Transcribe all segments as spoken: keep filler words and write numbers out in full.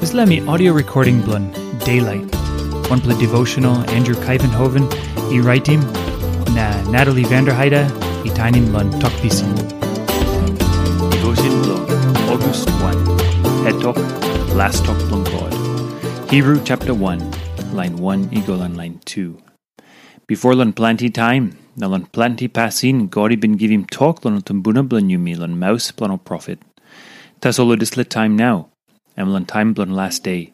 Dispela mi audio recording bilong Daylight, wanpela devotional Andrew Kaivenhoven i raitim, na Natalie Vanderheide i tainim long Tok Pisin. Devotion bilong August one, Het Tok, Las Tok bilong God. Hebrew chapter one, lain one i go long lain two. Bipo long planti taim, na long planti pasin, God i bin givim tok long tumbuna bilong yumi long maus bilong ol profet. Tasol long dispela taim nau, em long taim bilong las de,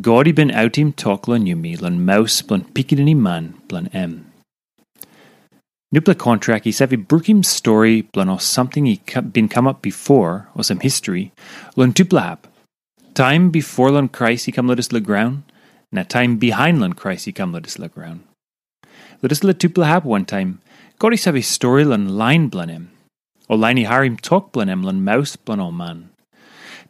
God i bin autim tok long yumi long maus bilong Pikinini Man bilong em. Nupela kontrak i save brukim stori bilong ol samting i ka- bin kamap bipo, olsem history, long tupela hap. Taim bipo long Krais i kam long dispela graun, na taim bihain long Krais i kam long dispela graun. Long dispela tupela hap wantaim, God i save stori long lain bilong em, o lain i harim tok bilong em long maus bilong ol man.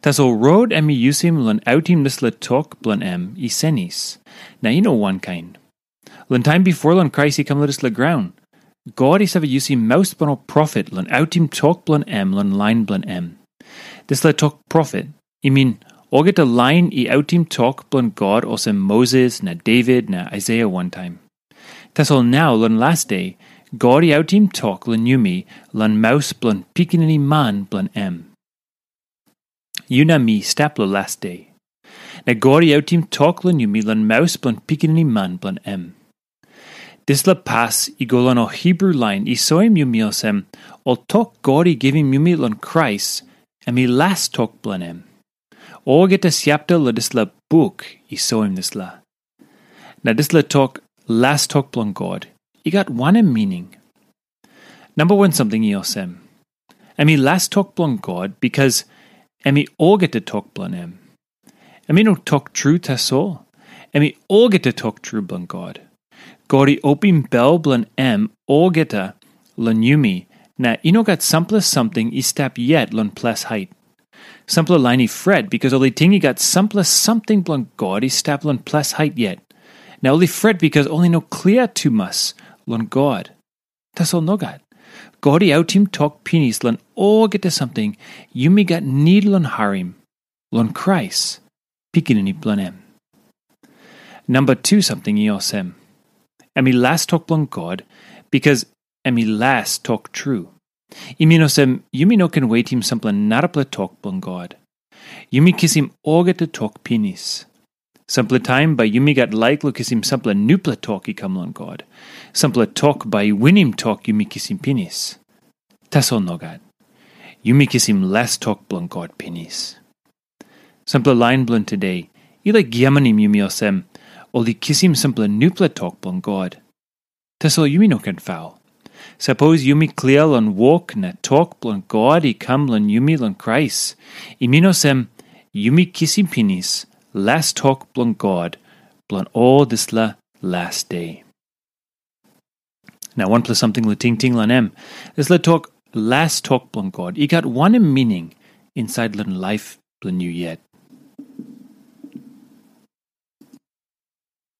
Tasol rot em i yusim long autim dispela tok bilong em i senis, na i no wankain. Long taim bipo long Krais i kam long dispela graun, God i save yusim maus bilong ol profet long autim tok bilong em long lain bilong em. Dispela tok profet, i min, olgeta lain i autim tok bilong God olsem Moses na David na Aisaia wantaim. Tasol nau long las de, God i autim tok long yumi long maus bilong Pikinini Man bilong em. Yu na mi stap long las de. Na God i autim tok long yumi long maus bilong Pikinini Man bilong em. Dispela pas i go long ol Hebrew lain i soim yumi olsem, ol tok God i givim yumi long Krais, em i las tok bilong em. Olgeta siapta long dispela buk i soim dispela. Na dispela tok, las tok bilong God, i gat wanem mining? Namba wan samting i olsem, em i las tok bilong God, bikas em i olgeta tok bilong em. Em i no tok tru tasol, em i olgeta tok tru bilong God. God i opim bel bilong em olgeta long yumi, na i no gat sampela samting i stap yet long ples hait. Sampela lain i fret bikas ol i ting i gat sampela samting bilong God i stap long ples hait yet. Na ol i fret bikas ol i no klia tumas long God. Tasol nogat. God i autim tok pinis long olgeta samting yumi gat nid long harim, long Krais, Pikinini bilong em. Namba tu samting i olsem, em i las tok bilong God, bikas em i las tok tru. I min olsem, yumi no ken wetim sampela narapela tok bilong God. Yumi kisim olgeta tok pinis. Sampela taim bai yumi gat laik long kisim sampela nupela tok i kam long God. Sampela tok bai i winim tok yumi kisim pinis. Tasol nogat. Yumi kisim las tok bilong God pinis. Sampela lain bilong today, i laik giamanim yumi olsem, ol i kisim sampela nupela tok bilong God. Tasol yumi no ken faul. Sapos yumi klia long wok na tok bilong God i kam long yumi long Krais, i min olsem, yumi kisim pinis las tok bilong God bilong ol dispela las de. Na wanpela samting long tingting long em, dispela tok, las tok bilong God, i gat wanem mining insait long laip bilong yu yet?